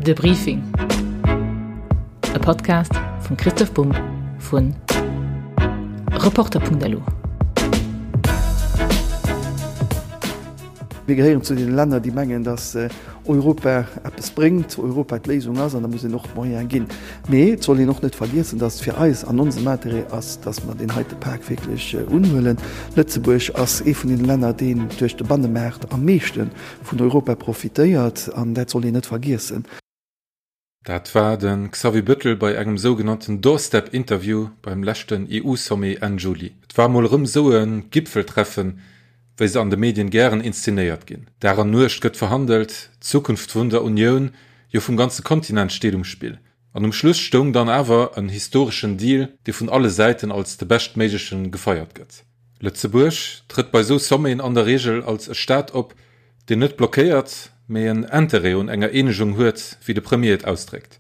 De Briefing, e Podcast vum Christoph Bumb vu Reporter.lu. Mir gehéieren zu deene Länner, déi mengen, datt Europa eppes bréngt, Europa d'Léisung ass an da muss een och d'Moyene ginn. Mee et soll een och net vergiessen, datt et fir eis an onsem Interêt ass, datt mer deen heite Pak wierklech unhuelen. Lëtzebuerg ass ee vun deene Länner, deen duerch de Bannemaart am meeschte vun Europa profitéiert an dat soll een net vergiessen. Dat war de Xavier Bettel bei engem sougenannten Doorstep-Interview beim leschten EU-Sommet Enn Juli. Et war mol erëm esou e Gipfeltreffen, wéi se an de Medien gären inszenéiert ginn. Dag an Nuecht gëtt verhandelt, d'Zukunft vun der Unioun, jo vum ganze Kontinent steet um Spill. An um Schluss stoung dann awer en historeschen Deal, dee vun alle Säiten als de beschtméiglechen gefeiert gëtt. Lëtzebuerg trëtt bei sou Sommeten an der Reegel als e Staat op, deen net blockéiert, mee en Interêt un enger Eenegung huet, wéi de Premier et ausdréckt.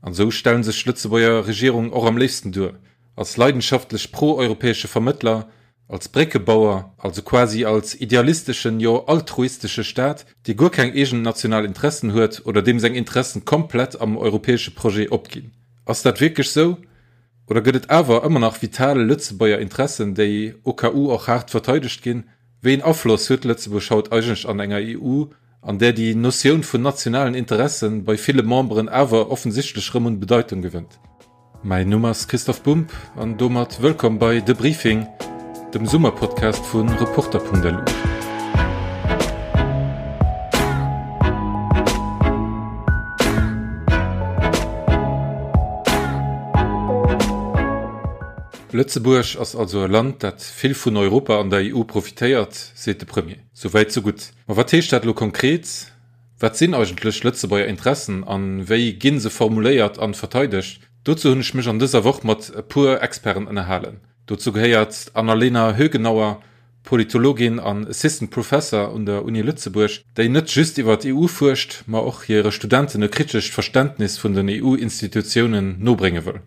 An esou stellen sech d'Lëtzebuerger Regierung och am léifsten duer, als leidenschaftlech pro-europäesche Vermëttler, als Bréckebauer, also quasi als idealisteschen, jo altruistesche Staat, dee guer keng eegen national Interessen huet oder deem seng Interessen komplett am europäesche Projet opginn. Ass dat wierklech sou? Oder gëtt et awer ëmmer nach vital Lëtzebuerger Interessen, déi au cas où och haart verteidegt ginn? Wéi een Afloss huet Lëtzebuerg haut eigentlech an enger EU, an där déi Notioun vun nationalen Interessen bei ville Memberen awer offensichtlech rëm un Bedeitung gewënnt? Mäin Numm ass Christoph Bumb an domat wëllkomm bei De Briefing, dem Summerpodcast vu Reporter.lu. Lëtzebuerg ass also e Land, dat vill vun Europa an der EU profitéiert, seet de Premier. Souwäit sou gutt. Ma wat heescht dat elo konkret? Wat sinn eigentlech Lëtzebuerger Interessen an wéi ginn se formuléiert an verteidegt? Dozou hunn ech mech an dëser Woch mat e puer Experten ënnerhalen. Dozou gehéiert d'Annalena Högenauer, Politologin an Assistant Professor un der Uni Lëtzebuerg, déi net just iwwer d'EU fuerscht, ma och hire Studenten e kritescht Verständnis vun den EU-Institutiounen nobrénge wëll.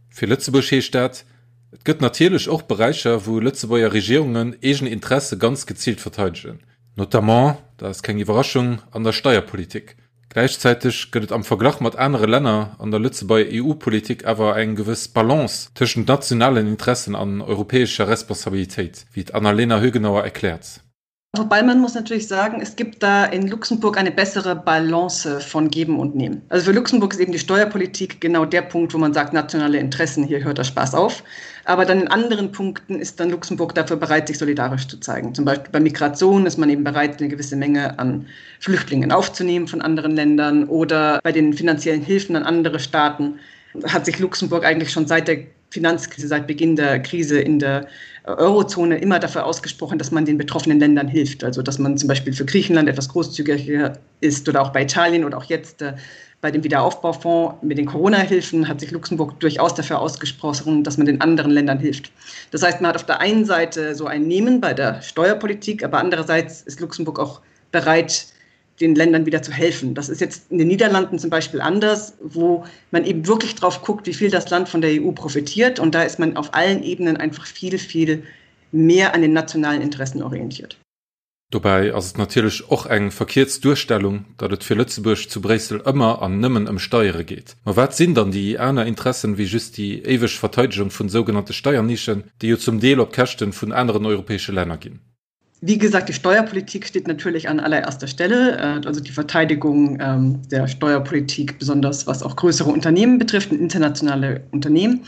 Fir Lëtzebuerg heescht dat, Et gëtt natierlech och Beräicher, wou Lëtzebuerger Regierungen eegen Interesse ganz geziilt verteidegen. Notamment, dat ass keng Iwwerraschung, an der Steierpolitik. Gläichzäiteg gëtt et am Verglach mat anere Länner an der Lëtzebuerger EU-Politik awer eng gewëss Balance tëschent nationalen Interessen an europäescher Responsabilitéit, wéi d'Annalena Högenauer erkläert. Wobei man muss natürlich sagen, es gibt da in Luxemburg eine bessere Balance von Geben und Nehmen. Also für Luxemburg ist eben die Steuerpolitik genau der Punkt, wo man sagt, nationale Interessen, hier hört der Spaß auf. Aber dann in anderen Punkten ist dann Luxemburg dafür bereit, sich solidarisch zu zeigen. Zum Beispiel bei Migration ist man eben bereit, eine gewisse Menge an Flüchtlingen aufzunehmen von anderen Ländern oder bei den finanziellen Hilfen an andere Staaten hat sich Luxemburg eigentlich schon seit der Finanzkrise, seit Beginn der Krise in der Eurozone immer dafür ausgesprochen, dass man den betroffenen Ländern hilft. Also dass man zum Beispiel für Griechenland etwas großzügiger ist oder auch bei Italien oder auch jetzt äh, bei dem Wiederaufbaufonds mit den Corona-Hilfen hat sich Luxemburg durchaus dafür ausgesprochen, dass man den anderen Ländern hilft. Das heißt, man hat auf der einen Seite so ein Nehmen bei der Steuerpolitik, aber andererseits ist Luxemburg auch bereit, den Ländern wieder zu helfen. Das ist jetzt in den Niederlanden zum Beispiel anders, wo man eben wirklich drauf guckt, wie viel das Land von der EU profitiert. Und da ist man auf allen Ebenen einfach viel, viel mehr an den nationalen Interessen orientiert. Dobäi ass et natierlech och eng verkierzt Duerstellung, datt et fir Lëtzebuerg zu Bréissel ëmmer an nëmmen ëm Steiere geet. Ma wat sinn dann déi aner Interessen wéi just déi éiweg Verteidegung vun sougenannte Steiernischen, déi jo zum Deel op Käschten vun aneren europäesche Länner ginn? Wie gesagt, die Steuerpolitik steht natürlich an allererster Stelle, äh, also die Verteidigung ähm, der Steuerpolitik, besonders was auch größere Unternehmen betrifft und internationale Unternehmen.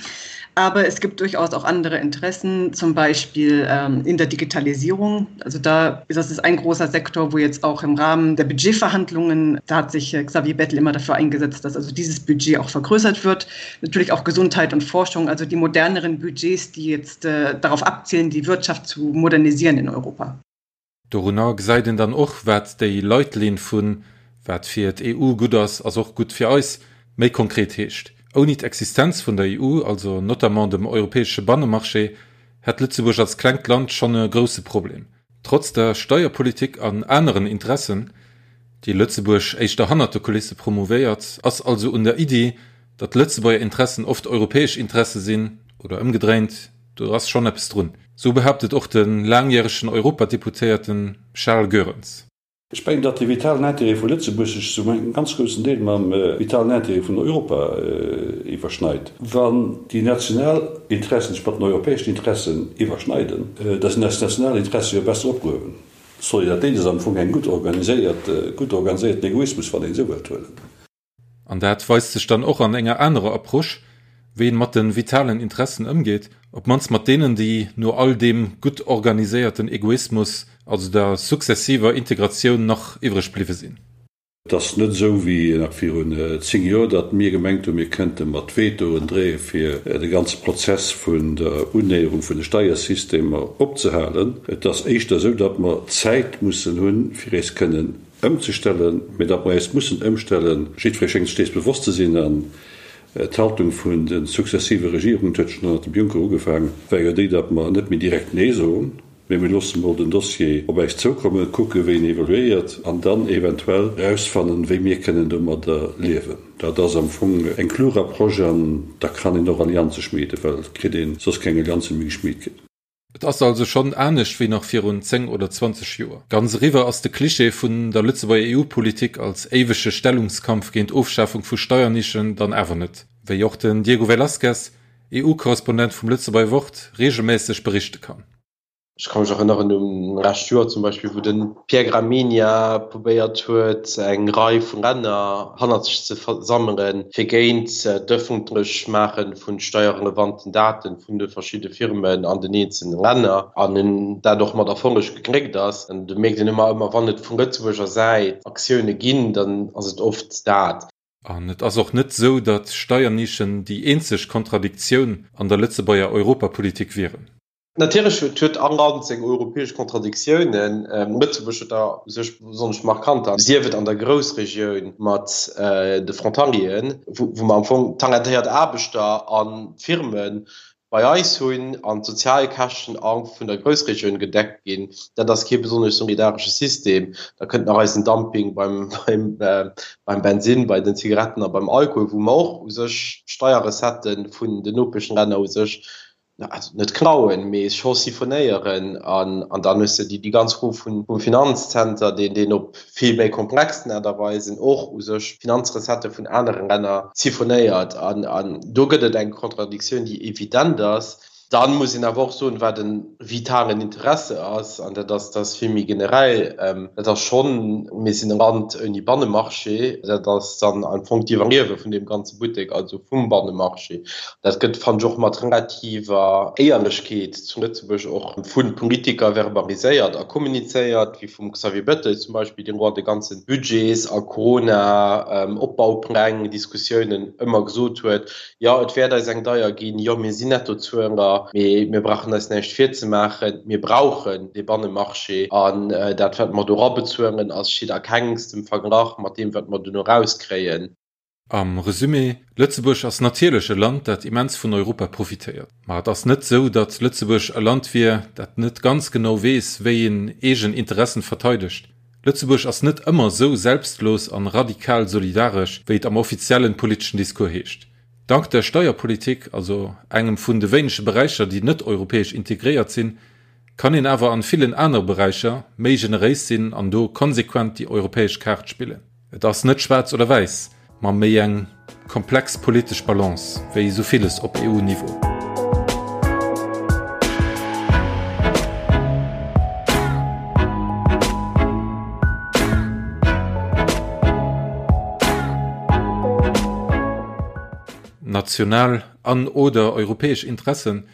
Aber es gibt durchaus auch andere Interessen, zum Beispiel ähm, in der Digitalisierung. Also da das ist ein großer Sektor, wo jetzt auch im Rahmen der Budgetverhandlungen, da hat sich äh, Xavier Bettel immer dafür eingesetzt, dass also dieses Budget auch vergrößert wird. Natürlich auch Gesundheit und Forschung, also die moderneren Budgets, die jetzt äh, darauf abzielen, die Wirtschaft zu modernisieren in Europa. Dorunner gesäit een dann och, wat déi Leitlinn vun wat fir d'EU gutt ass, ass och gutt fir eis méi konkret heescht. Ouni d'Existenz vun der EU, also notamment dem europäesche Bannemarché, hätt Lëtzebuerg als klengt Land schonn e grousse Problem. Trotz der Steierpolitik an aneren Interessen, déi Lëtzebuerg éischter hannert de Kulisse promouvéiert, ass also un der Iddi, datt Lëtzebuerger Interessen oft europäesch Interesse sinn, oder ëmgedréint, do ass schonn eppes drun. Sou behaaptet och de laangjäregen Europadeputéierten Charles Goerens. Ech mengen, datt de vitalen Intérêt vu Lëtzebuerg sech zu engem ganz groussen Deel mam vitalen Intérêt vun Europa iwwerschneit. Wann déi national Interessen sech mat den europäeschen Interessen iwwerschneiden, da sinn eis national Interesse jo besser opgehuewen. Solidaritéit ass am Fong eng gutt organiséiert, gutt organiséierten Egoismus, wann een esou wëllt huelen. An dat weist sech dann och an enger anerer Approche, wéi een mat de vitalen Interessen ëmgeet, op d'mannst mat deenen, déi no all deem gutt organiséierten Egoismus, also der successiver Integratioun, nach iwwreg bliwwe sinn. Et ass net esou wéi nach virun 10 Joer, datt mir gemengt hunn, mir kënnte mat Vetoen dreeë fir de ganze Prozess vun der Unnäherung vun de Steiersystemer opzehalen. Et ass éischter esou, datt mer Zäit mussen hunn, fir eis kënnen ëmzestellen, mä datt mer eis mussen ëmstellen, jiddweree schéngt sech dees bewosst ze sinn, an d'Haltung vun de successive Regierungen, et huet schonn ënnert dem Juncker ugefaang, war jo déi, datt mer net méi direkt Nee soen, mä mir loosse mol den Dossier op äis zoukommen, kucke wéi en evoluéiert an dann eventuell erausfannen, wéi mir kënnen domadder liewen. Dat ass am Fong eng klug Approche an da kann een och Allianze schmieden, well et kritt ee soss keng Allianze méi geschmied ginn. Et ass also schonn anescht wéi nach virun 10 oder 20 Joer. Ganz eriwwer ass de Cliché vun der Lëtzebuerger EU-Politik als éiwege Stellungskampf géint Ofschafung vu Steiernischen dann awer net, wéi och den Diego Velázquez, EU-Korrespondent vum Lëtzebuerger Wort, reegelméisseg berichte kann. Ech ka mech erënneren un lescht Joer zum Beispill, wou de Pierre Gramegna probéiert huet, eng Rei vu Länner hannert sech ze versammelen, fir géint d'Ëffentlechmaache vu steierrelevanten Daten vun de verschidde Firmen an den eenzelne Länner, an en dat och mat Erfolleg gegléckt ass. An do mierkt een ëmmer, ëmmer wann et vu Lëtzebuerger Säit Aktioune ginn, dann ass et oft dat. An et ass och net esou, datt Steiernischen déi eenzeg Kontradiktioun an der Lëtzebuerger Europapolitik wieren. Natierlech huet all Land seng europäesch Kontradiktiounen. Lëtzebuerg huet der u sech besonnesch markanter, sief et an der Groussregioun mat de Frontalieren, wou mer am Fong talentéiert Aarbechter a Firme bei eis hunn an d'Sozialkäschten a vun der Groussregioun gedeckt ginn. Dat ass kee besonnesch solidaresche System. Da kënnt nach eisen Dumping beim Bensinn, bei den Zigaretten a beim Alkohol, wou mer och u sech Steierrecettë vun den Nopeschlänner u sech also net klauen, mee scho siphonéieren an an dann hues de déi ganz Fro vun vum Finanzzenter, deen deen op vill méi komplexen Aart a Weisen och u sech Finanzrecettë vun anere Länner siphonéiert an an do gëtt et eng Kontradiktioun, déi evident ass. Dann muss een awer och soen, wat e vitalen Interesse ass, an dat ass, dat ass vill méi generell, dat ass schonn, mir sinn e Land ouni Bannemarché, dat ass dann am Fong d'Iwwerliewe vun deem ganze Buttek, also vum Bannemarché. Dat gëtt, fannen ech, och mat relativer Éierlechkeet zu Lëtzebuerg och vu Politiker verbaliséiert a kommunizéiert, wéi vum Xavier Bettel zum Beispill, deen och an de ganze Budgets a Corona-Opbaupläng-Diskussiounen ëmmer gesot huet, Jo, et wäert eis eng deier ginn, jo, mir sinn Nettozueler, mee mir brauchen eis näischt virzemaachen, mir brauchen dee Bannemarché an dat, wat mer do erabezuelen, ass steet a kengstem Verglach mat deem, wat mer duerno erauskréien. Am Resumé, Lëtzebuerg ass natierlech e Land, dat immens vun Europa profitéiert. Ma et ass net sou, datt Lëtzebuerg e Land wier, dat net ganz genau weess, wéi een eegen Interessen verteidegt. Lëtzebuerg ass net ëmmer sou selbstlos an radikal solidaresch, wéi et am offiziellen politeschen Discours heescht. Dank der Steierpolitik, also engem vun de wéinege Beräicher, déi net europäesch integréiert sinn, kann een awer an villen anere Beräicher méi generéis sinn an do konsequent déi europäesch Kaart spillen. Et ass net schwaarz oder wäiss, ma méi eng komplex politesch Balance, wéi esou villes op EU-Niveau. National an oder europäesch Interessen,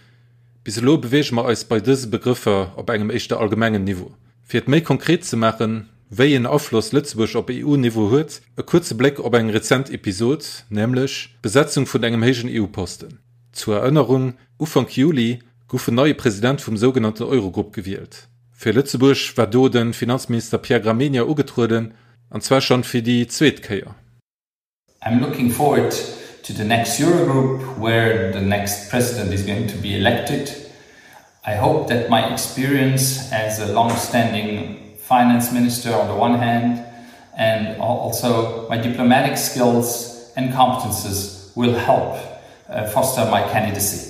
bis elo beweege mer eis bei dëse Begrëffer op engem éischter allgemengen Niveau. Fir et méi konkret ze maachen, wéi een Afloss Lëtzebuerg op EU-Niveau huet, e kuerze Bléck op eng rezent Episod, nämlech d'Besetzung vun engem héijen EU-Posten. Zur Erënnerung, Ufank Juli gouf en neie President vum sougenannten Eurogrupp gewielt. Fir Lëtzebuerg war do de Finanzminister Pierre Gramegna ugetrueden, an zwar schonn fir déi zweet Kéier. I'm looking forward to the next Eurogroup where the next president is going to be elected. I hope that my experience as a long-standing finance minister on the one hand and also my diplomatic skills and competences will help uh, foster my candidacy.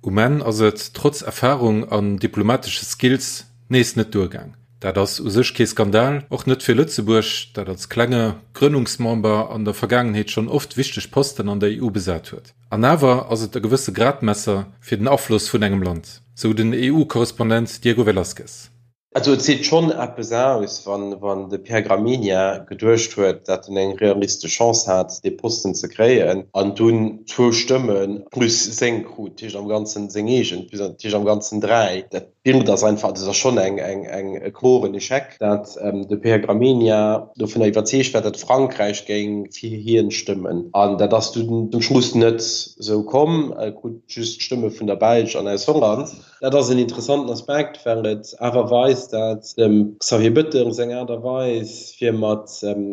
Um Enn ass et, trotz Erfarung an diplomatesche Skills, nees net duergaang. Dat ass u sech kee Skandal, och net fir Lëtzebuerg, dat als klenge Grënnungsmember an der Vergaangenheet schonn oft wichteg Posten an der EU besat huet. An awer ass et e gewësse Gradmesser fir den Afloss vun engem Land, sou den EU-Korrespondent Diego Velázquez. Also et seet schonn eppes aus, wann de Pierre Gramegna geduecht huet, datt en eng realistesch Chance hat, dee Posten ze kréien, an dunn zwou Stëmme plus seng krut, dat heescht am Ganzen seng eegen, dat heescht am Ganzen 3. Dat Bild ass einfach, dat ass schonn e kloren Echec, datt de Pierre Gramegna dovunner iwwerzeegt war, datt Frankräich géing fir hien stëmmen. An dat ass dunn zum Schluss net esou komm, e krut just d'Stëmme vun der Belsch an aus Holland. Dat ass en interessanten Aspekt, well et awer weist, dat dem Xavier Bettel seng Aart a Weis, fir mat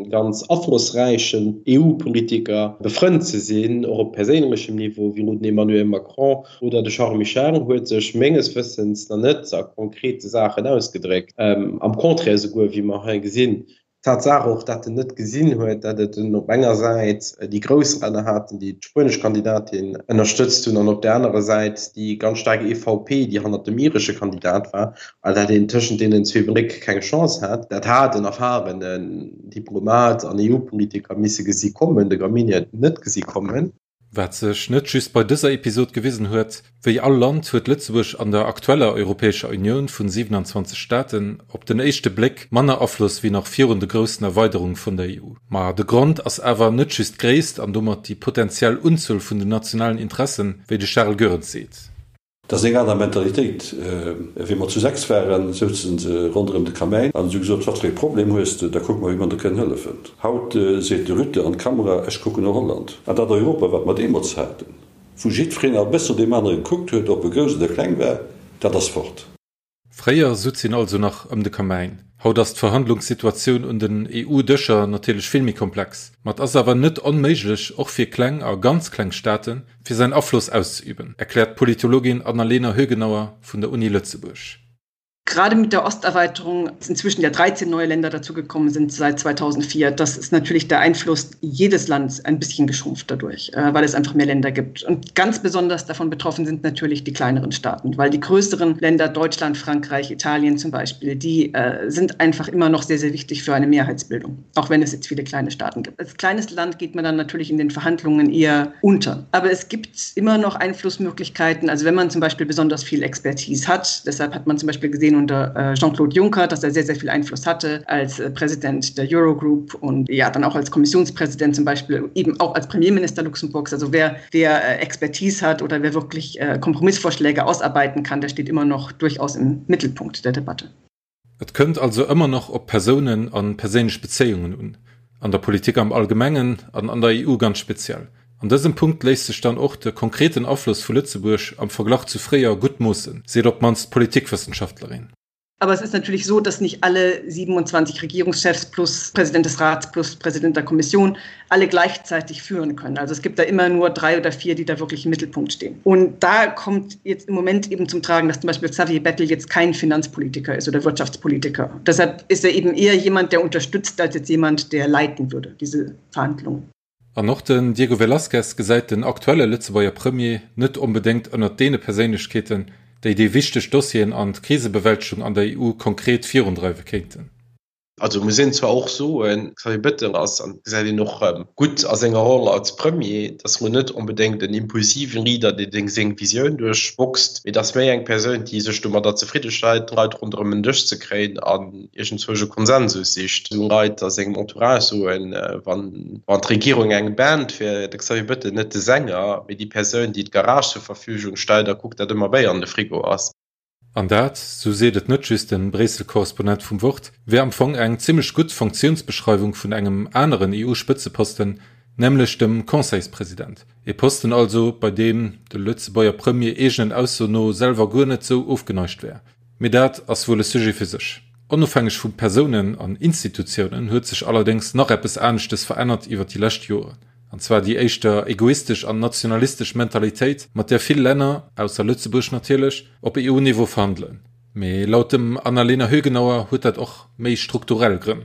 ganz aflossräichen EU-Politiker befrënnt ze sinn, och op perséinlechem Niveau, wéi elo den Emmanuel Macron oder de Charles Michel, huet sech menges Wëssens nach net a konkrete Saachen ausgedréckt. Am Contraire esouguer, wéi mer hei gesinn. D'Tatsaach och, dat en net gesinn huet, dat et en op enger Säit déi grouss Länner haten, déi d'spuenesch Kandidatin ënnerstëtzt hunn, an op där anerer Säit déi ganz staark EVP, déi hannert dem iresche Kandidat war, a dat een tëschent deenen zwee Bléck keng Chance hat. Dat hat en erfarenen Diplomat an EU-Politiker misse gesi kommen, de Gramegna huet et net gesi kommen. Wat sech net just bei dëser Episod gewisen huet, Wéi all Land huet Lëtzebuerg an der aktueller Europäescher Unioun vun 27 Staaten op den éischte Bléck manner Afloss wéi nach virun de groussen Erweiderung vun der EU. Ma de Grond ass awer net just d'Gréisst an domat déi potentiell Unzuel vun den nationalen Interessen, wéi de Charel Goerens seet. Dat ass eng aner Mentalitéit. Wéi mer zu 6 waren, souzen se ronderëm de Kamäin an si hu gesot, Wat fir ee Problem hues de, da kucke mer, wéi mer der kënnen hëllefen. Haut seet de Rutte an d'Kamera, Ech kucken no Holland. An dat Europa, wat mer deemools haten, wou jiddwereen e bëssen no deem anere gekuckt huet, ob e grouss oder kleng war, dat ass fort. Fréier sutz een also nach ëm de Kamäin. Haut ass d'Verhandlungssituatioun un den EU-Dëscher natierlech vill méi komplex. Ma et ass awer net onméiglech, och fir kleng a ganz kleng Staaten, fir säin Afloss auszeüben, erkläert d'Politologin Annalena Högenauer vun der Uni Lëtzebuerg. Gerade mit der Osterweiterung inzwischen ja 13 neue Länder dazugekommen sind seit 2004. Das ist natürlich der Einfluss jedes Landes ein bisschen geschrumpft dadurch, äh, weil es einfach mehr Länder gibt. Und ganz besonders davon betroffen sind natürlich die kleineren Staaten, weil die größeren Länder Deutschland, Frankreich, Italien zum Beispiel, die äh, sind einfach immer noch sehr, sehr wichtig für eine Mehrheitsbildung, auch wenn es jetzt viele kleine Staaten gibt. Als kleines Land geht man dann natürlich in den Verhandlungen eher unter. Aber es gibt immer noch Einflussmöglichkeiten, also wenn man zum Beispiel besonders viel Expertise hat, deshalb hat man zum Beispiel gesehen unter äh, Jean-Claude Juncker, dass er sehr, sehr viel Einfluss hatte als äh, Präsident der Eurogroup und ja dann auch als Kommissionspräsident zum Beispiel, eben auch als Premierminister Luxemburgs. Also wer, wer äh, Expertise hat oder wer wirklich Kompromissvorschläge ausarbeiten kann, der steht immer noch durchaus im Mittelpunkt der Debatte. Et kënnt also ëmmer nach op Persounen an perséinlech Bezéiungen un, an der Politik am Allgemengen an an der EU ganz speziell. An dësem Punkt léisst sech dann och de konkreten Afloss vu Lëtzebuerg am Verglach zu fréier gutt moossen, seet op d'mannst d'Politikwëssenschaftlerin. Aber es ist natürlich so, dass nicht alle 27 Regierungschefs plus Präsident des Rats plus Präsident der Kommission alle gleichzeitig führen können. Also es gibt da immer nur drei oder vier, die da wirklich im Mittelpunkt stehen. Und da kommt jetzt im Moment eben zum Tragen, dass zum Beispiel Xavier Bettel jetzt kein Finanzpolitiker ist oder Wirtschaftspolitiker. Deshalb ist er eben eher jemand, der unterstützt, als jetzt jemand, der leiten würde, diese Verhandlungen. An och den Diego Velázquez gesäit den aktuelle Lëtzebuerger Premier net onbedéngt ënnert deene Perséinlechkeeten, déi déi wichteg Dossieren an d'Krisebewältegung an der EU konkret virundreiwe kéinten. Also muss een zwar och soen, Xavier Bettel ass, an dat gesäit een och gutt a senger Roll als Premier, datt elo net onbedéngt en impulsiven Leader, dee seng Visioun duerchboxt, mee datt méi eng Persoun, déi sech domadder zefridde stellt, d'Leit ronderëm en Dësch ze kréien an iergendzwousch e Konsensus sicht. Esou Leit a sengem Entourage soen, wann d'Regierung eng Band wier, de Xavier Bettel net de Sänger, mee déi Persoun, déi d'Garage zur Verfügung stellt a kuckt, datt ëmmer Béier an de Frigo ass. An dat, sou seet et net just de Bréissel-Korrespondent vum Wort, wär am Fong eng zimmlech gutt Funktiounsbeschreiwung vun engem aneren EU-Spëtzeposten, nämlech dem Conseilspresident. Ee Posten also, bei deem de Lëtzebuerger Premier eegenen Ausso no selwer guer net sou ofgeneigt wär. Mee dat ass wuel e Sujet fir sech. Onofhängeg vu Persounen an Institutiounen huet sech allerdéngs nach eppes aneschtes verännert iwwer déi lescht Joren, an zwar déi éischter egoistesch an nationalistesch Mentalitéit, mat där vill Länner, ausser Lëtzebuerg natierlech, op EU-Niveau verhandelen. Mee laut dem Annalena Högenauer huet dat och méi strukturell Grënn.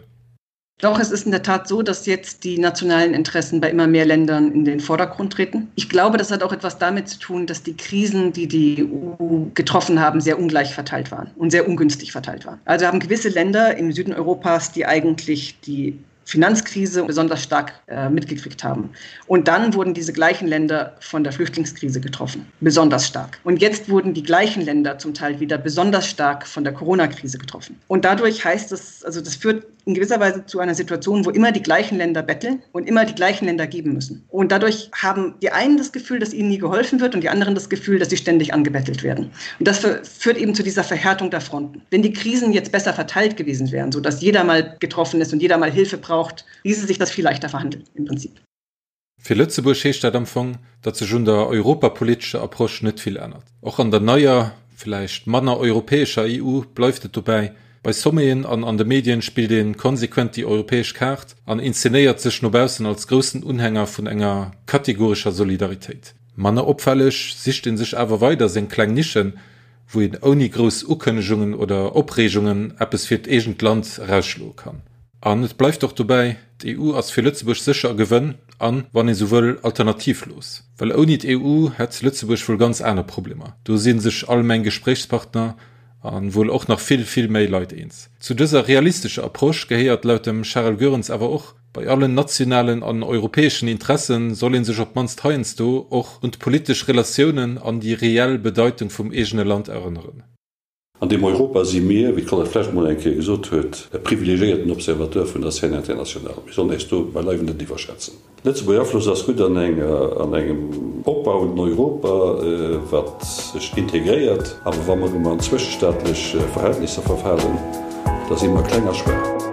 Doch es ist in der Tat so, dass jetzt die nationalen Interessen bei immer mehr Ländern in den Vordergrund treten. Ich glaube, das hat auch etwas damit zu tun, dass die Krisen, die die EU getroffen haben, sehr ungleich verteilt waren und sehr ungünstig verteilt waren. Also haben gewisse Länder im Süden Europas, die eigentlich die Finanzkrise besonders stark äh, mitgekriegt haben. Und dann wurden diese gleichen Länder von der Flüchtlingskrise getroffen, besonders stark. Und jetzt wurden die gleichen Länder zum Teil wieder besonders stark von der Corona-Krise getroffen. Und dadurch heißt es, also das führt in gewisser Weise zu einer Situation, wo immer die gleichen Länder betteln und immer die gleichen Länder geben müssen. Und dadurch haben die einen das Gefühl, dass ihnen nie geholfen wird und die anderen das Gefühl, dass sie ständig angebettelt werden. Und das führt eben zu dieser Verhärtung der Fronten. Wenn die Krisen jetzt besser verteilt gewesen wären, sodass jeder mal getroffen ist und jeder mal Hilfe braucht, ließe sich das viel leichter verhandeln im Prinzip. Fir Lëtzebuerg heescht dat am Fong, datt sech un der europapolitescher Approche net vill ännert. Och an der neier, villäicht manner europäescher EU bleift et dobäi, Bei Sommeten an an de Medien spillt ee konsequent déi europäesch Kaart an inszenéiert sech no baussen als groussen Unhänger vun enger kategorescher Solidaritéit. Manner opfälleg sicht ee sech awer weider seng kleng Nischen, wou een ouni grouss Ukënnegungen oder Opreegungen eppes fir d'eegent Land erausschloe kann. An et bleift och dobäi, D'EU ass fir Lëtzebuerg sécher e Gewënn an, wann ee sou wëll, alternativlos. Well ouni d'EU hätt Lëtzebuerg wuel ganz aner Problemer. Do si sech all meng Gespréichspartner a wuel och nach vill, vill méi Leit eens. Zu dëser realistescher Approche gehéiert laut dem Charel Goerens awer och, Bei allen nationalen an europäeschen Interesse soll ee sech op d'mannst heiansdo och un d'politesch Relatiounen an déi reell Bedeitung vum eegene Land erënneren. An deem Europa si mir, wéi d'Colette Flesch mol eng Kéier gesot huet, e privilegiéierten Observateur vun der Scène internationale. Mir sollen äis do beileiwen net iwwerschätzen. Lëtzebuerger Afloss ass gutt an engem opbauenden Europa, wat sech integréiert. Awer wa mer erëm an zwëschestaatlech Verhältnisser verfalen, da si mer kleng a schwaach.